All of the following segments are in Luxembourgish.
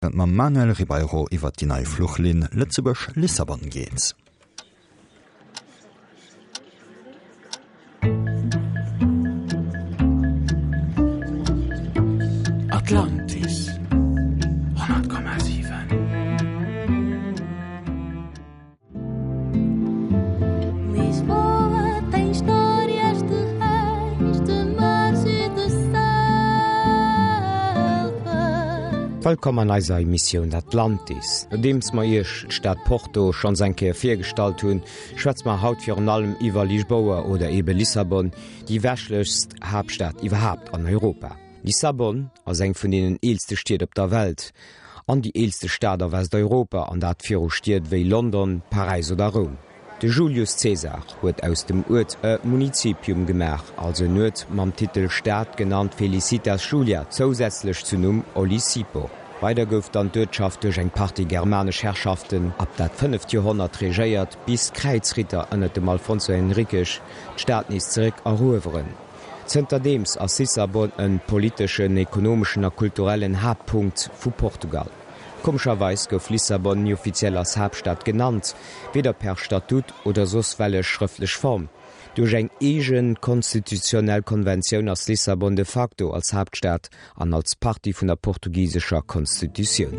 Et mam Manuel Ribeiro iwwert déi nei Fluchlinn Lëtzebuerg-Lissabon geet. Atlantis 100,7. Lisboa tem histórias de reis, de mares e de selva. Wëllkomm an eiser Emissioun Atlantis. Nodeems mer iech d'Stad Porto schonns eng Kéier virgestallt hunn, schwätze mer haut virun allem iwwer Lisboa oder ebe Lissabon, déi westlechst Haaptstad iwwerhaapt an Europa. Lissabon ass eng vun deenen eelste Stied op der Welt an déi eelste Stad a Westeuropa, an dat viru Stied wéi London, Paräis oder Roum. De Julius Caesar huet aus dem Uert e Municipium gemaach, also en Uert mam Titel Stad, genannt Felicitas Julia, zousätzlech zu Numm Olisipo. Weider gouf dann d'Uertschaft duerch eng Partie germanesch Herrschaften ab dat fënneft Joerhonnert regéiert, bis d'Kräizritter ënnert dem Alfonso Henriques d'Stad nees zeréck erueweren. Zënterdeems ass Lissabon en politeschen, ekonomeschen a kulturellen Haaptpunkt vu Portugal. Komescherweis gouf Lissabon ni offiziell als Haaptstad genannt, weder per Statut oder soss wellech schrëftlech Form. Duerch eng eege konstitutionell Konventioun ass Lissabon de facto als Haaptstad an als Partie vun der portugisescher Konstitutioun.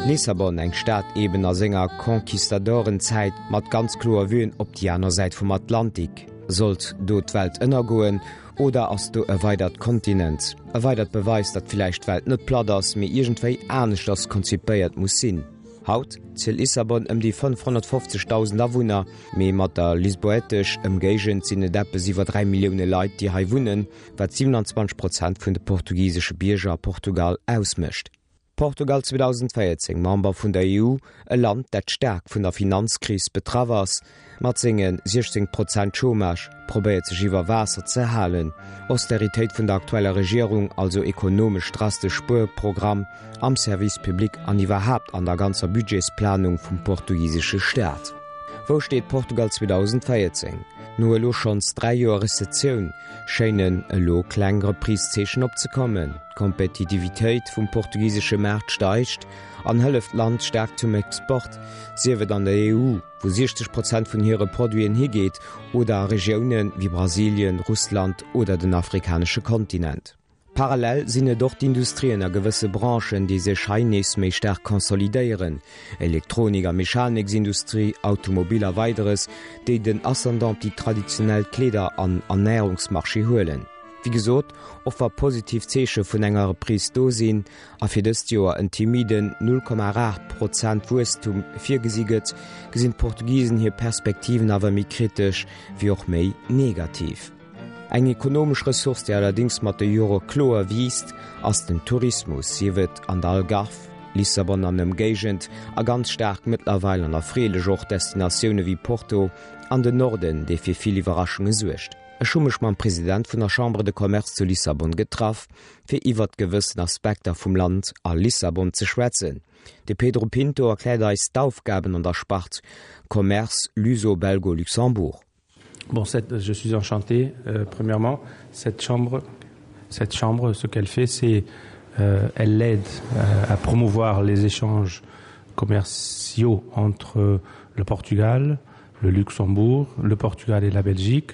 Lissabon, eng Stad eben a senger Conquistadorenzäit mat ganz kloer Vuen op déi aner Säit vum Atlantik. Sollt do d'Welt ënnergoen oder ass do e weidert Kontinent? E weidert Beweis, datt villäicht d'Welt net platt ass, mee iergendwéi aneschters konzipéiert muss sinn. Haut zielt Lissabon ëm déi 550.000 Awunner, mee mat der lisboètesch Ëmgéigend sinn et eppes iwwer 3 Millioune Leit, déi hei wunnen, wat 27 Prozent vun de portugisesche Bierger a Portugal ausmécht. Portugal 2014 Member vun der EU, e Land, dat staark vun der Finanzkris betraff ass, Mat senge 16 Prozent Chômage probéiert sech iwwer Waasser ze halen. Austeritéit vun der aktueller Regierung, also ekonomesch drastesch Spuerprogramm am Service public an iwwerhaapt an der ganzer Budgetsplanung vum portugisesche Staat. Wou steet Portugal 2014? No elo schonns 3 Joer Rezessioun schéinen elo kleng Reprise-Zeechen opzekommen. D'Kompetitivitéit vum portugisesche Maart steigt an hëlleft d'Land staark zum Export, sief et an der EU, wou 60 Prozent vun hire Produiten higeet, oder a Regioune wéi Brasilien, Russland oder den afrikanesche Kontinent. Parallel sinn et och d'Industrien a gewësse Branchen, déi sech hei nees méi staark consolidéieren, Elektronik a Mechaniksindustrie, Automobil a Weideres, déi den Ascendant op déi traditionell Kleeder an Ernärungsmarché huelen. Wéi gesot, och wa positiv Zeeche vun enger Reprise do sinn, a fir dëst Joer en timiden 0,8 Prozent Wuesstum virgesi gëtt, gesinn d'Portugisen hir Perspektiven awer méi kritesch wéi och méi negativ. Eng ekonomesch Ressource, déi allerdéngs mat de Jore kloer wiisst, ass den Tourismus, sief et an der Algarve, Lissabon an Ëmgéigend a ganz staark mëttlerweil an erfreelech och Destinatioune wéi Porto an den Norden, dee fir vill Iwwerraschunge suergt. Ech hu mech mam President vun der Chambre de Commerce zu Lissabon getraff, fir iwwert gewëssen Aspekter vum Land a Lissabon ze schwätzen. De Pedro Pinto erkläert eis d'Aufgaben an der Spart Commerce Luso-Belgo-Luxembourg. Bon, cette, je suis enchanté euh, premièrement cette chambre cette chambre ce qu'elle fait c'est euh, elle l'aide euh, à promouvoir les échanges commerciaux entre le Portugal, le Luxembourg, le Portugal et la Belgique,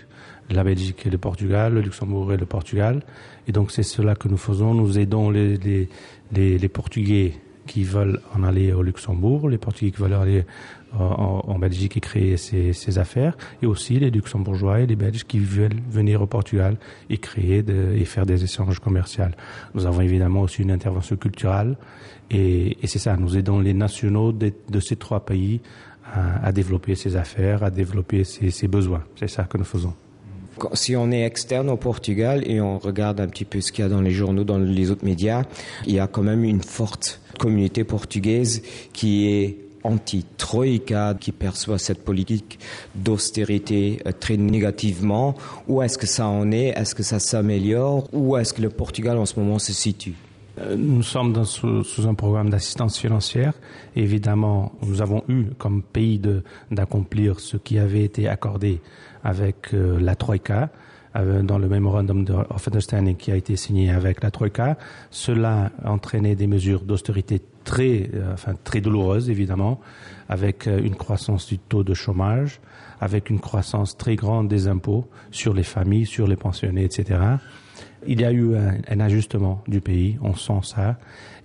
la Belgique et le Portugal, le Luxembourg et le Portugal. Et donc c'est cela que nous faisons, nous aidons les, les, les, les Portugais qui veulent en aller au Luxembourg, les Portugais qui veulent aller en, en Belgique et créer ces, ces affaires, et aussi les Luxembourgeois et les Belges qui veulent venir au Portugal et créer de, et faire des échanges commerciaux. Nous avons évidemment aussi une intervention culturelle et, et c'est ça, nous aidons les nationaux de, de ces trois pays à, à développer ses affaires, à développer ses, ses besoins. C'est ça que nous faisons. Si on est externe au Portugal et on regarde un petit peu ce qu'il y a dans les journaux, dans les autres médias, il y a quand même une forte communauté portugaise qui est anti-troïka, qui perçoit cette politique d'austérité euh, très négativement. Où est-ce que ça en est Est-ce que ça s'améliore Où est-ce que le Portugal en ce moment se situe euh, Nous sommes dans, sous, sous un programme d'assistance financière. Évidemment, nous avons eu comme pays d'accomplir ce qui avait été accordé avec euh, la Troïka. euh, dans le memorandum of understanding qui a été signé avec la Troïka. Cela a entraîné des mesures d'austérité très, euh, enfin, très douloureuses, évidemment, avec euh, une croissance du taux de chômage, avec une croissance très grande des impôts sur les familles, sur les pensionnés, etc. Il y a eu un, un ajustement du pays, on sent ça.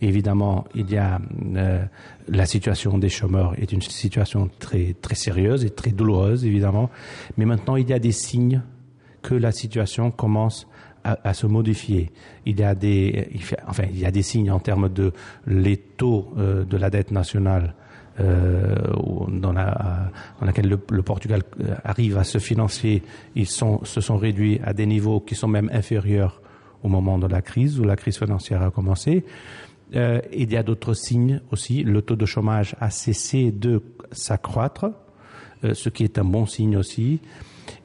Évidemment, il y a euh, la situation des chômeurs est une situation très, très sérieuse et très douloureuse, évidemment. Mais maintenant, il y a des signes que la situation commence à, à se modifier. Il y a des, il fait, enfin, il y a des signes en termes de les taux euh, de la dette nationale euh, dans, la, dans laquelle le, le Portugal euh, arrive à se financer, ils sont, se sont réduits à des niveaux qui sont même inférieurs au moment de la crise où la crise financière a commencé. Euh, il y a d'autres signes aussi. Le taux de chômage a cessé de s'accroître, euh, ce qui est un bon signe aussi.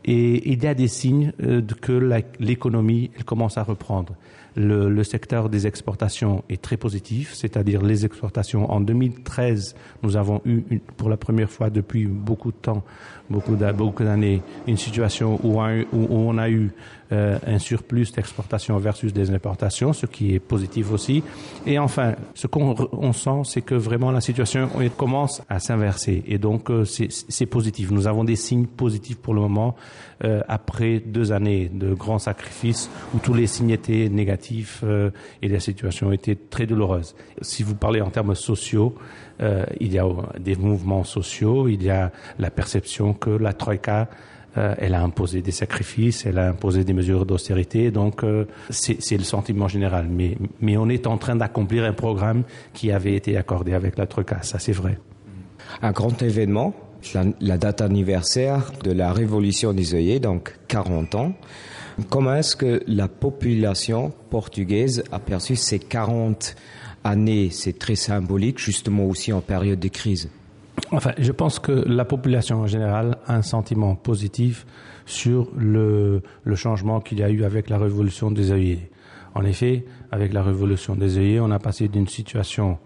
Et il y a des signes euh, que l'économie commence à reprendre. Le, le secteur des exportations est très positif, c'est-à-dire les exportations en 2013, nous avons eu une, pour la première fois depuis beaucoup de temps, beaucoup d'années, une situation où, un, où on a eu euh, un surplus d'exportation versus des importations, ce qui est positif aussi. Et enfin, ce qu'on on sent, c'est que vraiment la situation commence à s'inverser et donc euh, c'est positif. Nous avons des signes positifs pour le moment euh, après deux années de grands sacrifices où tous les signes étaient négatifs euh, et la situation était très douloureuse. Si vous parlez en termes sociaux, euh, il y a des mouvements sociaux, il y a la perception que la troïka euh, elle a imposé des sacrifices, elle a imposé des mesures d'austérité, donc euh, c'est le sentiment général. Mais, mais on est en train d'accomplir un programme qui avait été accordé avec la troïka, ça c'est vrai. Un grand événement, la, la date anniversaire de la révolution des œillets, donc 40 ans. Comment est-ce que la population portugaise a perçu ces 40 années C'est très symbolique, justement aussi en période de crise. Enfin, je pense que la population en général a un sentiment positif sur le, le changement qu'il y a eu avec la révolution des œillets. En effet, avec la révolution des œillets, on a passé d'une situation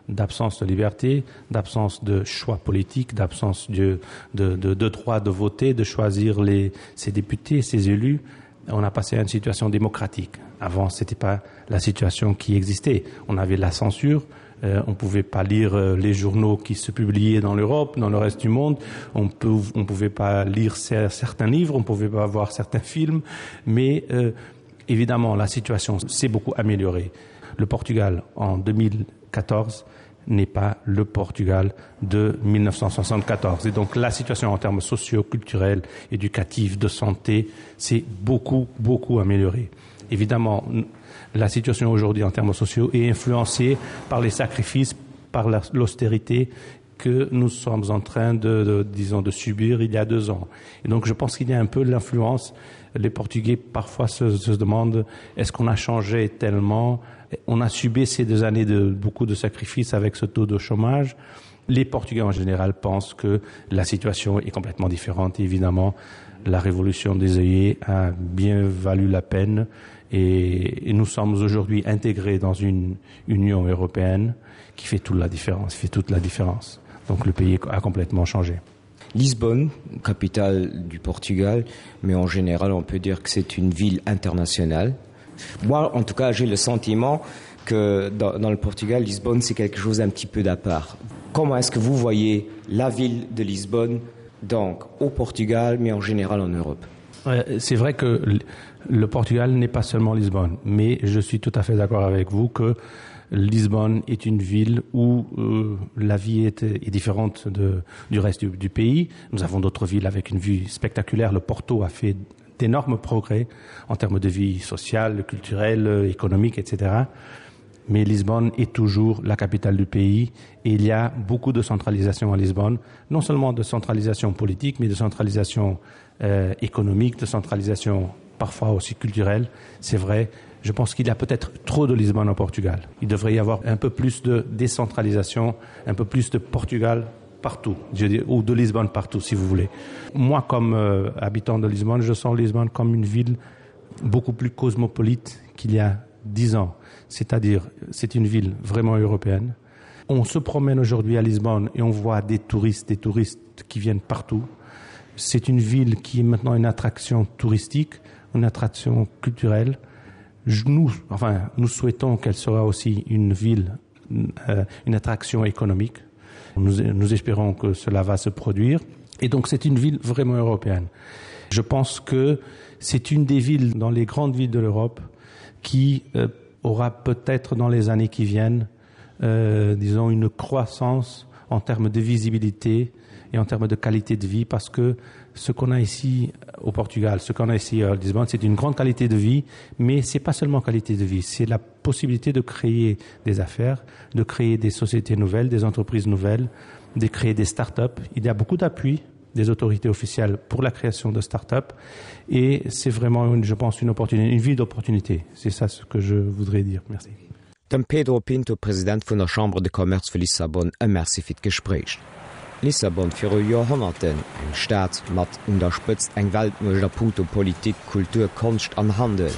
d'absence de liberté, d'absence de choix politique, d'absence de, de, de, de droit de voter, de choisir les, ses députés, ses élus, on a passé à une situation démocratique. Avant, ce n'était pas la situation qui existait. On avait la censure, euh, on ne pouvait pas lire euh, les journaux qui se publiaient dans l'Europe, dans le reste du monde, on ne pouvait pas lire certains livres, on ne pouvait pas voir certains films, mais euh, évidemment, la situation s'est beaucoup améliorée. Le Portugal, en 2014, n'est pas le Portugal de 1974. Et donc la situation en termes sociaux, culturels, éducatifs, de santé s'est beaucoup, beaucoup améliorée. Évidemment, la situation aujourd'hui en termes sociaux est influencée par les sacrifices, par l'austérité que nous sommes en train de, de, disons, de subir il y a deux ans. Et donc je pense qu'il y a un peu l'influence. Les Portugais parfois se, se demandent est-ce qu'on a changé tellement On a subi ces deux années de beaucoup de sacrifices avec ce taux de chômage. Les Portugais en général pensent que la situation est complètement différente. Évidemment, la révolution des œillets a bien valu la peine et, et nous sommes aujourd'hui intégrés dans une Union européenne qui fait toute la différence, fait toute la différence. Donc le pays a complètement changé. Lisbonne, capitale du Portugal, mais en général on peut dire que c'est une ville internationale. Moi, en tout cas, j'ai le sentiment que dans, dans le Portugal, Lisbonne, c'est quelque chose un petit peu d'à part. Comment est-ce que vous voyez la ville de Lisbonne donc au Portugal, mais en général en Europe C'est vrai que le Portugal n'est pas seulement Lisbonne, mais je suis tout à fait d'accord avec vous que Lisbonne est une ville où euh, la vie est, est différente de, du reste du, du pays. Nous avons d'autres villes avec une vue spectaculaire. Le Porto a fait d'énormes progrès en termes de vie sociale, culturelle, économique, etc. Mais Lisbonne est toujours la capitale du pays et il y a beaucoup de centralisation à Lisbonne, non seulement de centralisation politique, mais de centralisation euh, économique, de centralisation parfois aussi culturelle. C'est vrai, je pense qu'il y a peut-être trop de Lisbonne au Portugal. Il devrait y avoir un peu plus de décentralisation, un peu plus de Portugal partout, je dis, ou de Lisbonne partout, si vous voulez. Moi, comme euh, habitant de Lisbonne, je sens Lisbonne comme une ville beaucoup plus cosmopolite qu'il y a dix ans. C'est-à-dire, c'est une ville vraiment européenne. On se promène aujourd'hui à Lisbonne et on voit des touristes, des touristes qui viennent partout. C'est une ville qui est maintenant une attraction touristique. une attraction culturelle. Nous, enfin, nous souhaitons qu'elle sera aussi une ville, euh, une attraction économique. Nous, nous espérons que cela va se produire. Et donc c'est une ville vraiment européenne. Je pense que c'est une des villes dans les grandes villes de l'Europe qui euh, aura peut-être dans les années qui viennent euh, disons une croissance en termes de visibilité et en termes de qualité de vie parce que ce qu'on a ici au Portugal, ce qu'on a ici à Lisbonne, c'est une grande qualité de vie, mais c'est pas seulement qualité de vie, c'est la possibilité de créer des affaires, de créer des sociétés nouvelles, des entreprises nouvelles, de créer des start-up. Il y a beaucoup d'appui des autorités officielles pour la création de start-up et c'est vraiment une, je pense une opportunité, une vie d'opportunité. C'est ça ce que je voudrais dire. Merci. Dem Pedro Pinto, President vun der Chambre de Commerce vu Lissabon, e Merci fir d'Gespréich. Lissabon viru Joerhonnerten, eng Stad mat un der Spëtzt eng Weltmuecht a punkto Politik, Kultur, Konscht an Handel.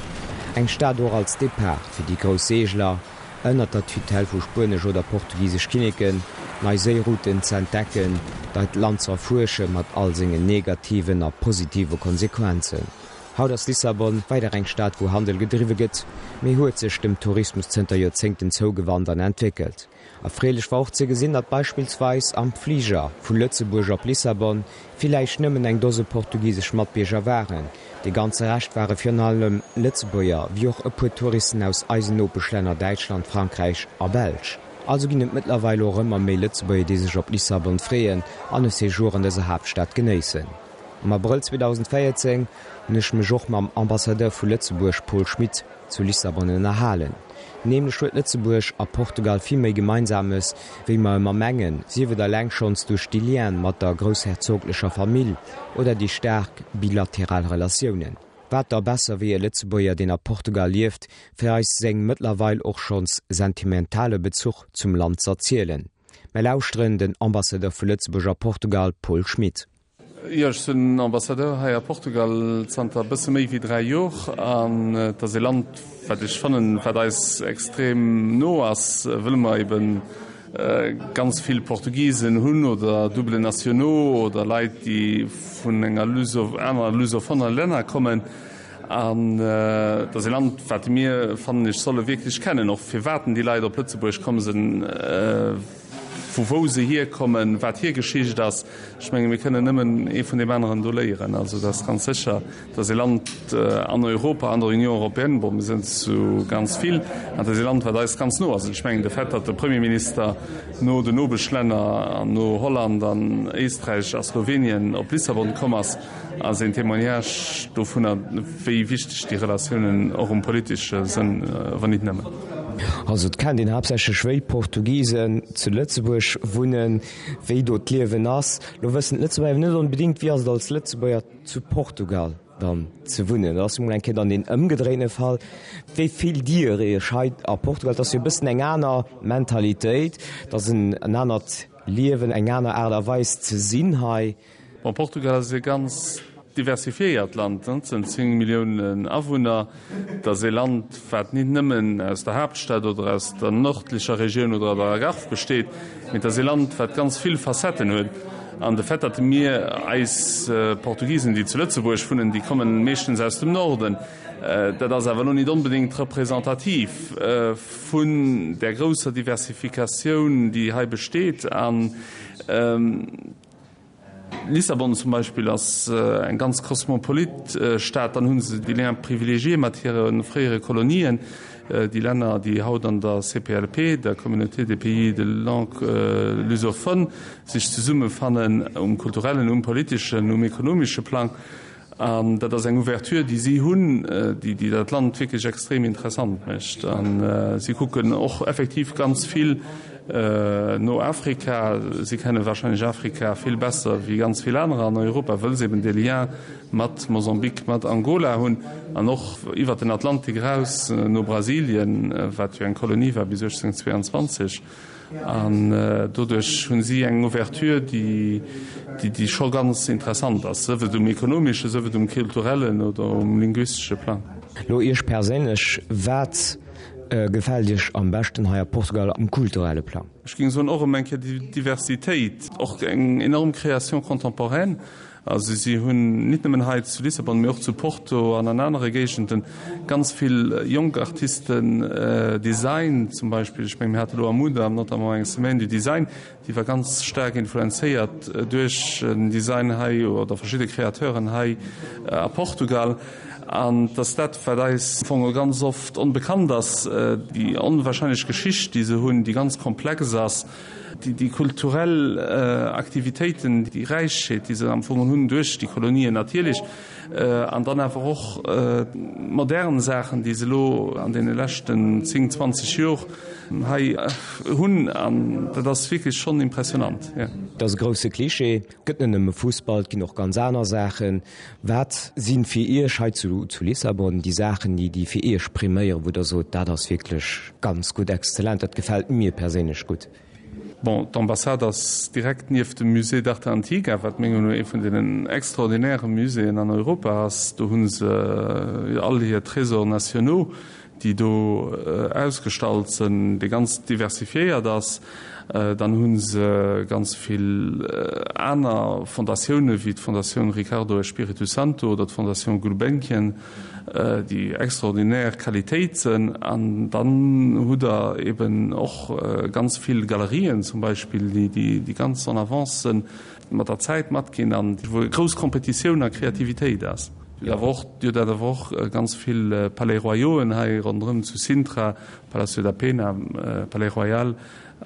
Eng Stad och als Depart fir déi grouss Seegler, ënnert der Tutelle vu spuenesch oder portugisesch Kinneken, nei Séirouten ze entdecken, deit Land ze erfuersche mat all sengen negativen a positive Konsequenzen. Haut ass Lissabon weider eng Stad wou Handel gedriwwe gëtt, mee huet sech dem Tourismus zënter Joerzéngten zougewannt an entwéckelt. Erfreelech war och ze gesinn, datt beispillsweis am Fliger vu Lëtzebuerg op Lissabon villäicht nëmmen eng Dose portugisesch Matbierger waren. De ganze Rescht ware virun allem Lëtzebuerger, wéi och e puer Touristen aus eisen Nopeschlänner Däitschland, Frankräich a Belsch. Also ginn et mëttlerweil och ëmmer méi Lëtzebuerger déi sech op Lissabon freeën an e Séjour an dëser Haaptstad genéissen. Am Abrëll 2014 hunn ech mech och mam Ambassadeur vu Lëtzebuerg Paul Schmit zu Lissabon ënnerhalen. Nämlech huet Lëtzebuerg a Portugal vill méi Gemeinsames, wéi mer ëmmer mengen, sief et eleng schonns duerch déi Liene mat der groussherzoglecher Famill oder déi staark bilateral Relatiounen. Wat da besser wéi e Lëtzebuerger, deen a Portugal lieft, fir eis seng mëttlerweil och schonns sentimentale Bezuch zum Land z'erzielen? Mer lauschteren den Ambassadeur vu Lëtzebuerg a Portugal Paul Schmit. Jo, ech sinn Ambassadeur hei a Portugal zanter e bësse méi wéi 3 Jor an et ass ee Land, wat ech fannen, wat eis extrem no ass, wëll mer eben ganz vill Portugisen hunn oder double nationaux oder Leit, déi vun enger Luso, aner lusophoner Länner kommen. An et ass ee Land, wat mir, fannen ech, solle wierklech kennen, och firwat déi Leit op Lëtzebuerg komm sinn. Vu wou se hierkommen, wat hir Geschicht ass. Ech menge mir kënnen nëmmen ee vun deem aneren do léieren. Also et ass ganz sécher, et ass ee Land an Europa, an der Union européenne, bon mir sinn zu ganz vill, an et ass ee Land, wat eis ganz no ass. An ech mengen de Fait, datt de Premierminister no den Nopeschlänner an no Holland an Éisträich a Slowenien op Lissabon komm ass, Ass een Témoignage dovunner, wéi wichteg déi Relatiounen och um politesche Sënn, wann nit nëmmen. Also et kennt een haaptsächlech wéi Portugisen zu Lëtzebuerg wunnen, wéi do d'Liewen ass. Lo wëssen d'Lëtzebuerger awer net onbedéngt, wéi ass et als Lëtzebuerger zu Portugal dann ze wunnen. Dat ass jo mol eng Kéier dann deen ëmgedréine Fall. Wéi fillt Dir Iech hei a Portugal? Et ass jo e bëssen eng aner Mentalitéit, et ass en anert Liewen, eng aner Aart a Weis ze sinn hei. Bon, Portugal ass e ganz diversifiéiert Land, et sënn 10 Milliounen Awunner. Et ass e Land, wat nit nëmmen aus der Haaptstad oder aus der nördlecher Regioun oder der Algarve besteet, mee et ass e Land, wat ganz vill Facetten huet. An de Fait, datt mir eis Portugisen, déi zu Lëtzebuerg wunnen, déi kommen meeschtens aus dem Norden, dat ass awer elo nit onbedéngt representativ vun där grousser Diversifikatioun, déi hei besteet. An Lissabon zum Beispill ass eng ganz kosmopolit Stad. Dann hu se déi Liens privilégiés mat hire fréiere Kolonien, déi Länner, déi haut an der CPLP, der Communauté des pays de langue lusophone, sech zesummefannen um kulturellen, um politeschen, um ekonomesche Plang. An dat ass eng Ouverture, déi si hunn, déi dat Land wierklech extrem interessant mécht. A si kucken och effektiv ganz vill no Afrika. Si kenne warscheinlech Afrika vill besser wéi ganz vill anerer an Europa, wëll se eben dee Lien mat Mosambik, mat Angola hunn an och iwwert den Atlantik eraus no Brasilien, wat jo eng Kolonie war bis 1822. An doduerch hu si eng Ouverture, déi scho ganz interessant ass, sief et um ekonomeschen, sief et um kulturellen oder um linguistesche Plang. Lo Iech perséinlech, wat gefält Iech am beschten hei a Portugal um kulturelle Plang? Ech géing soen, och erëm eng Kéier déi Diversitéit, och eng enorm Création contemporaine. Also si hunn nit nëmmen hei zu Lissabon, mee och zu Porto an an anere Géigenden ganz vill jonk Artisten, Design zum Beispill. Ech menge mir hate lo am Mudam notamment eng Semaine du Design, déi war ganz staark influenzéiert duerch en Design hei oder verschidde Kreateuren hei a Portugal. An et ass dat, wat eis am Fong ganz oft onbekannt ass, déi onwahrscheinlech Geschicht, déi se hunn, déi ganz komplex ass. Déi kulturell Aktivitéiten, déi Räichheet, déi se am Fong hunn duerch déi Kolonien natierlech, an dann awer och modern Saachen, déi se elo an deene leschten 10, 20 Jor hei hunn, an dat ass wierklech schonn impressionant. Et ass e grousse Klischee, et gëtt net nëmme Fussball, et ginn och ganz aner Saachen. Wat si fir Iech hei zu Lissabon déi Saachen, déi fir Iech priméieren, wou Der sot, dat ass wierklech ganz gutt, exzellent, dat gefält mir perséinlech gutt? Bon, d'Ambassade ass direkt nieft dem Musée d'Arte Antiga, wat menger Meenung no ee vun deenen extraordinäre Muséeën an Europa ass. Do hu se all hir Trésors nationaux, déi do ausgestallt sënn, dee ganz diversifiéiert ass. Dann hu se ganz vill aner Fondatioune wéi d'Fondatioun Ricardo Espírito Santo oder d'Fondation Gulbenkian, déi extraordinär Qualitéit sënn. An dann hutt Der eben och ganz vill Galerien zum Beispill, déi ganz en avance sënn, mat der Zäit matginn an wou grouss Kompetitioun a Kreativitéit ass. Dir hutt awer och, Dir hutt awer och ganz vill Palais Royauxen hei ronderëm zu Sintra, Palacio da Pena, Palais Royal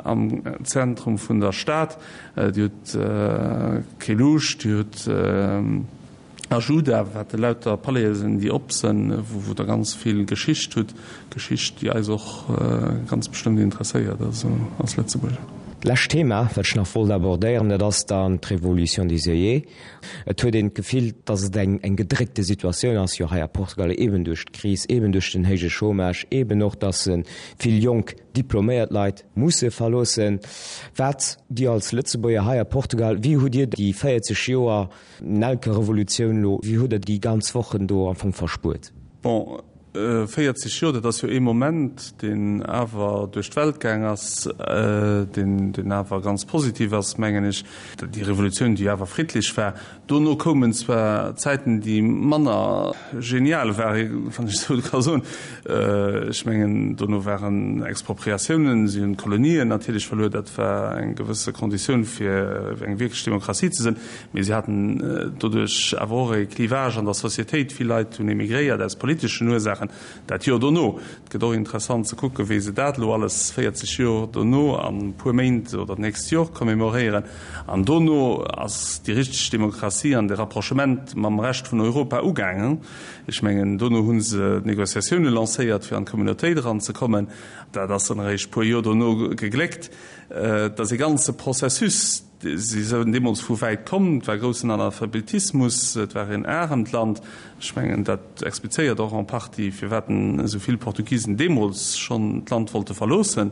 am Zentrum vun der Stad. Dir hutt Queluz, Dir hutt Ajuda, wat elauter Palaisen sinn, déi op sënn, wou Der ganz vill Geschicht hutt, Geschicht, déi eis och ganz bestëmmt interesséiert, also als Lëtzebuerger. D'lescht Thema, wat ech nach wollt abordéieren, dat ass dann d'Révolution des œillets. Et huet een d'Gefill, dass et eng eng gedréckte Situatioun ass, jo hei a Portugal, eeben duerch d'Kris, eeben duerch den héije Chômage, eeben och, dass vill jonk diploméiert Leit musse verloossen. Wat Dir als Lëtzebuerger hei a Portugal, wéi hutt Dir déi 40 Joer Nelkerevolutioun elo, wéi hutt Der déi ganz Wochen do am Fong verspuert? Bon, 40 Joer, dat ass jo ee Moment, deen awer duerch d'Welt gaang ass, deen, deen awer ganz positiv ass, mengen ech. Déi Revolutioun, déi awer friddlech war. Dono koumen zwar Zäiten, déi manner genial waren, wann ech esou ka soen. Ech mengen, dono waren Expropriatiounen, si hunn d'Kolonien natierlech verluer, dat war eng gewësse Konditioun, fir eng wierklech Demokratie ze sinn. Mee si haten doduerch awer och e Clivage an der Societéit. Vill Leit hunn emigréiert aus politeschen Ursaachen. Dat Joer dono, et gëtt och interessant ze kucken, wéi se dat elo alles 40 Joer dono an e puer Méint oder d'nächst Jor commémoréieren. An dono ass déi richteg Demokratie an de Rapprochement mam Rescht vun Europa ugaangen. Ech mengen, dono hu se d'Négociatioune lancéiert, fir an d'Communautéit eranzekommen. Dat ass dann eréischt e puer Joer dono gegléckt. Et ass e ganze Processus. Si sinn deemools vu wäit komm, et war groussen Analphabetismus, et war een aremt Land. Ech mengen, dat explizéiert och en partie, firwat esou vill Portugisen deemools schonn d'Land wollte verloossen.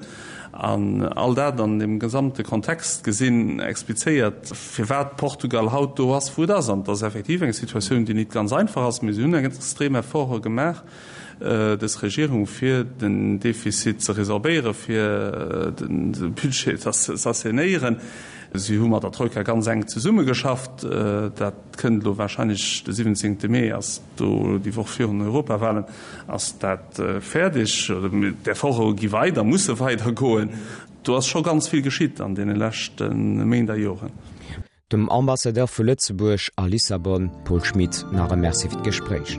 An all dat an deem gesamte Kontext gesinn, explizéiert, firwat Portugal haut do ass, wou et ass. An et ass effektiv eng Situatioun, déi nit ganz einfach ass, mee si hunn extrem Efforte gemaach, dës Regierung, fir den Defizit ze resorbéieren, fir de Budget z'assainéieren. Si hu mat der Troika ganz enk zesummegeschafft. Dat kënnt elo wahrscheinlech, de 17. Mee ass do, déi Woch virun den Europawahlen, ass dat fäerdeg. D'Efforte gi weider, musse weidergoen. Do ass scho ganz vill geschitt an deene leschte Méint a Joren. Dem Ambassadeur vu Lëtzebuerg a Lissabon, Paul Schmit, nach e Merci fir d'Gespréich.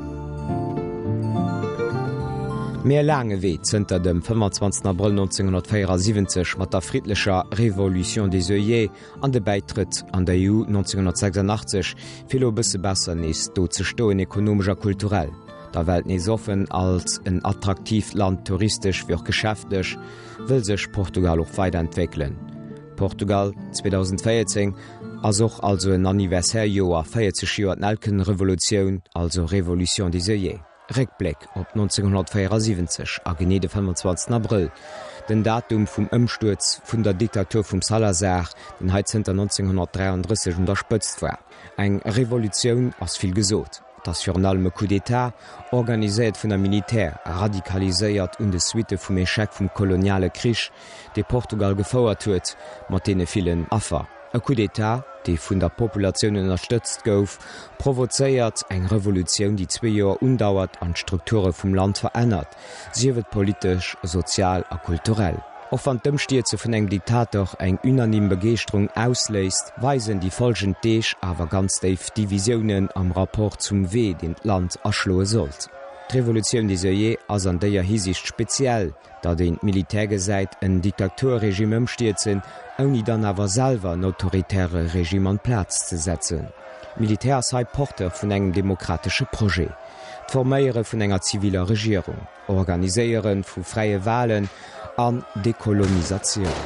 Mee e laange Wee zënter dem 25 Abrëll 1974 mat der friddlecher Révolution des œillets an de Bäitrëtt an der EU 1986, fir elo e bësse besser nees do ze stoen, ekonomesch a kulturell, der Welt nees offen als en attraktiivt Land, touristesch wéi och geschäftlech, wëll sech Portugal och weiderentwéckelen. Portugal 2014 ass och also en Anniversaire-Joer, 40 Joer d'Nelkenrevolutioun, also Révolution des œillets. Réckbléck op 1974 a genee de 25 Abrëll, den Datum vum Ëmstuerz vun der Diktatur vum Salazar, deen hei zënter 1933 un der Spëtzt war. Eng Revolutioun ass vill gesot. Et ass virun allem e Coup d'État, organiséiert vun der Militär, radikaliséiert un de Suitte vum Echec vum koloniale Krich, dee Portugal gefouert huet, mat deene villen Affer. E Coup d'État, dee vun der Populatioun ënnerstëtzt gouf, provozéiert eng Revolutioun, déi zwee Joer undauert an d'Strukture vum Land verännert, sief et politesch, sozial a kulturell. Och wann d'Ëmstierze vun engem Diktator eng unanime Begeeschterung ausléist, weisen déi folgend Deeg awer ganz déif Divisiounen am Rapport zum Wee, deen d'Land aschloe sollt. D'Revolutioun des Œillets ass an déier Hisiicht speziell, datt een d'Militär gesäit en Diktaturregime ëmstierzen, ouni dann awer selwer en autoritäre Regime an d'Plaz ze setzen. D'Militär ass hei Porteur vun engem demokratesche Projet, d'Forméiere vun enger ziviler Regierung. Organiséiere vu fräie Walen an Dekolonisatioun.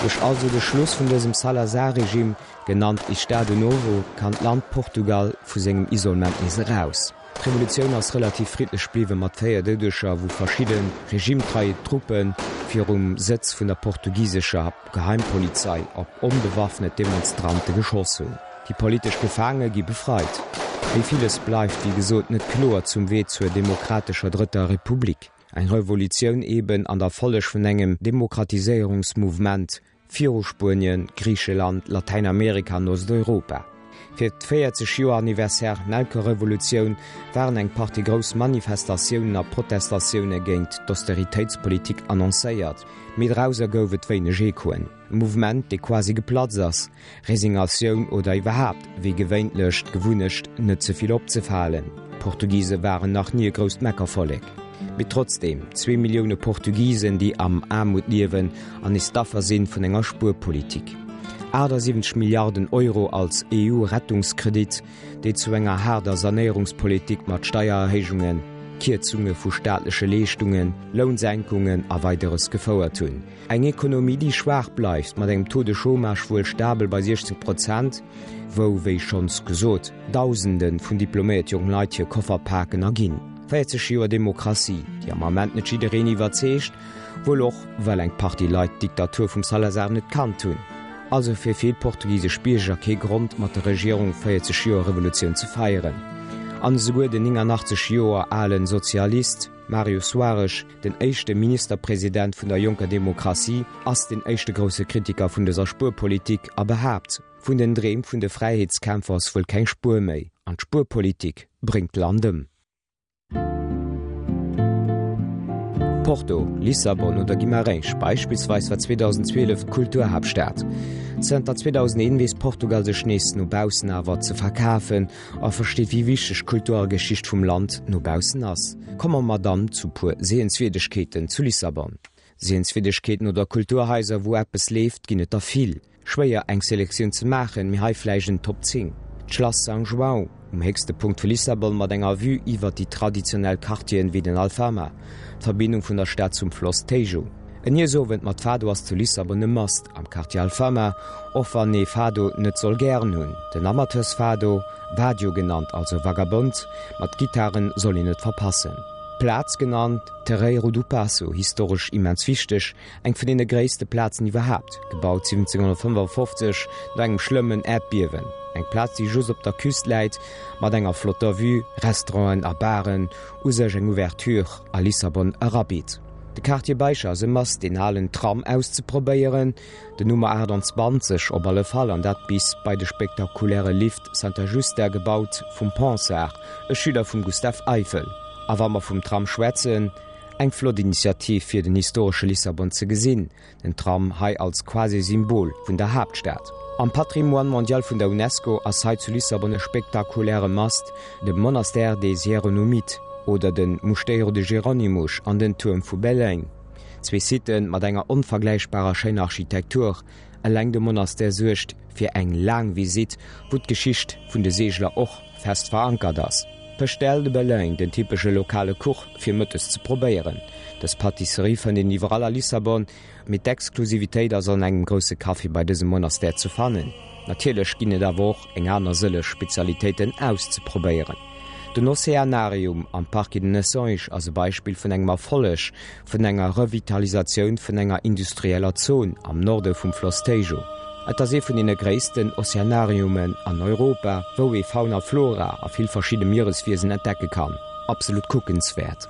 Duerch also de Schluss vun dësem Salazar-Regime, genannt Estado Novo, kann d'Land Portugal vu sengem Isolement nees eraus. D'Revolutioun ass relativ friddlech bliwwen, mat 4 Doudeger, wou verschidde regimetreie Truppe virum Sëtz vun der portugisescher Geheimpolizei op onbewaffnet Demonstrante geschoss hunn. Déi politesch Gefaange gi befreit. Mee villes bleift, wéi gesot, net kloer zum Wee zur demokratescher Drëtter Republik. Eng Revolutioun eben an der Folleg vun engem Demokratiséierungsmouvement viru Spuenien, Griicheland, Latäinamerika an Osteuropa. Fir d' 40 Joer Anniversaire Nelkerevolutioun waren eng Partie grouss Manifestatiounen a Protestatioune géint d'Austeritéitspolitik annoncéiert, mee drauser gouf et wéineg Echoen. E Mouvement, dee quasi geplatzt ass, Resignatioun oder iwwerhaapt, wéi gewéintlech, d'Gewunnecht, net ze vill opzefalen. D'Portugise waren nach ni e grousst Meckervollek. Mee trotzdeem, zwee Millioune Portugisen, déi am Aarmut liewen an nees d'Affer sinn vun enger Spuerpolitik. 78 Milliarden Euro als EU-Rettungskredit, déi zu enger haarder Sanéierungspolitik mat Steiererhéijungen, Kierzunge vu staatleche Leeschtungen, Lounsenkungen a Weideres gefouert hunn. Eng Ekonomie, déi schwaach bleift, mat engem Taux de chômage wuel stabel bei 16 Prozent, wou, wéi schonns gesot, Dausende vun diploméiert jonk Leit hir Koffer paken a ginn. 40 Joer Demokratie, déi am Ament net jiddereen iwwerzeegt, wuel och, well eng Partie Leit d'Diktatur vum Salazar net kannt hunn. Also fir vill portugisesch Bierger kee Grond, mat der Regierung 40 Joer Revolutioun ze feieren. An esouguer den 89 Joer alen Sozialist Mario Soares, Den éischte Ministerpresident vun der jonker Demokratie ass den éischte grousse Kritiker vun dëser Spuerpolitik a behaapt, Vun den Dreem vun de Fräiheetskämpfer ass wuel keng Spuer méi an d'Spuerpolitik bréngt d'Land ëm. Porto, Lissabon oder Guimarães beispillsweis war 2012 d'Kulturhaaptstad. Zënter 2001 weess Portugal sech nees no baussen awer ze verkafen a versteet wéi wichteg d'Kultur a Geschicht vum Land no baussen ass. Komme mer dann zu puer Sehenswierdegkeeten zu Lissabon. Sehenswierdegkeeten oder Kulturhaiser wou eppes leeft ginn et der vill. Schwéier eng Selektioun ze maachen, mee hei vläicht en Top 10. D'Schlass São João, um héchste Punkt vu Lissabon mat enger Vue iwwert déi traditionell Quartieren wéi den Alfama, d'Verbindung vun der Stad zum Floss Tejo. En Iessowend mat Fado ass zu Lissabon e Must am Quartier Alfama, och wann ee Fado net soll gären hunn. Den Amateursfado, Vadio genannt, also Vagabond, mat Gittaren soll een net verpassen. D'Plaz genannt Terreiro do Paço, historesch immens wichteg, eng vun deene gréisste Plazen iwwerhaapt, gebaut 1755 no engem schlëmmen Äerdbiewen. Eng Plaz déi just op der Küst läit, mat enger flotter Vue, Restauranten a Baren, u sech eng Ouverture a Lissabon erabitt. De Quartier Baixa ass e Must, deen alen Tram auszeprobéieren, den Nummer 28 op alle Fall, an dat bis bei de spektakuläre Lift Santa Justa, gebaut vum Ponsard, e Schüler vum Gustave Eiffel. A wa mer vum Tram schwätzen, eng flott Initiativ fir den historesche Lissabon ze gesinn, Den Tram hei als quasi Symbol vun der Haaptstad. Am Patrimoine mondial vun der Unesco ass hei zu Lissabon e spektakuläre Mast, de Monastère des Hieronomites oder de Mosteiro de Jerónimos an den Tuerm vu Belém. Zwee Siten mat enger onvergläichbarer schéiner Architektur. Eleng de Monastère suergt fir eng laang Visitt, wou d'Geschicht vun de Seegler och fest verankert ass. Pastel de Belém, den typesche lokale Kuch fir mëttes ze probéieren. Dës Pâtisserie fënnt een iwwerall a Lissabon, mee d'Exklusivitéit ass an engem grousse Café bei dësem Monastère ze fannen. Natierlech ginn et awer och eng aner sëlleg Spezialitéiten auszeprobéieren. Den Oceanarium am Parque de Nações ass e Beispill vun engem Erfolleg vun enger Revitalisatioun vun enger industrieller Zon am Norde vum Floss Tejo. Et ass ee vun deene gréissten Oceanariumen an Europa, wou ee Fauna, Flora a vill verschidde Miereswiesen entdecke kann. Absolut kuckenswäert.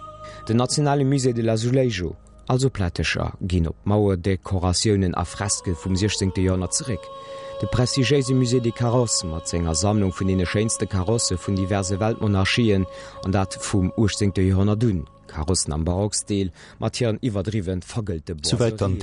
Den nationale Musée de l'Azulejo. Also Plättecher ginn op Mauerdekoratiounen a Freske vum 16. Joerhonnert zeréck. De prestigiéise Musée des Carrosses mat senger Sammlung vun deene schéinste Karosse vun diverse Weltmonarchien, an dat vum 18. Joerhonnert un, Karossen am Barockstil mat hiren iwwerdriwwen vergëllte Souwäit dann Boiserien.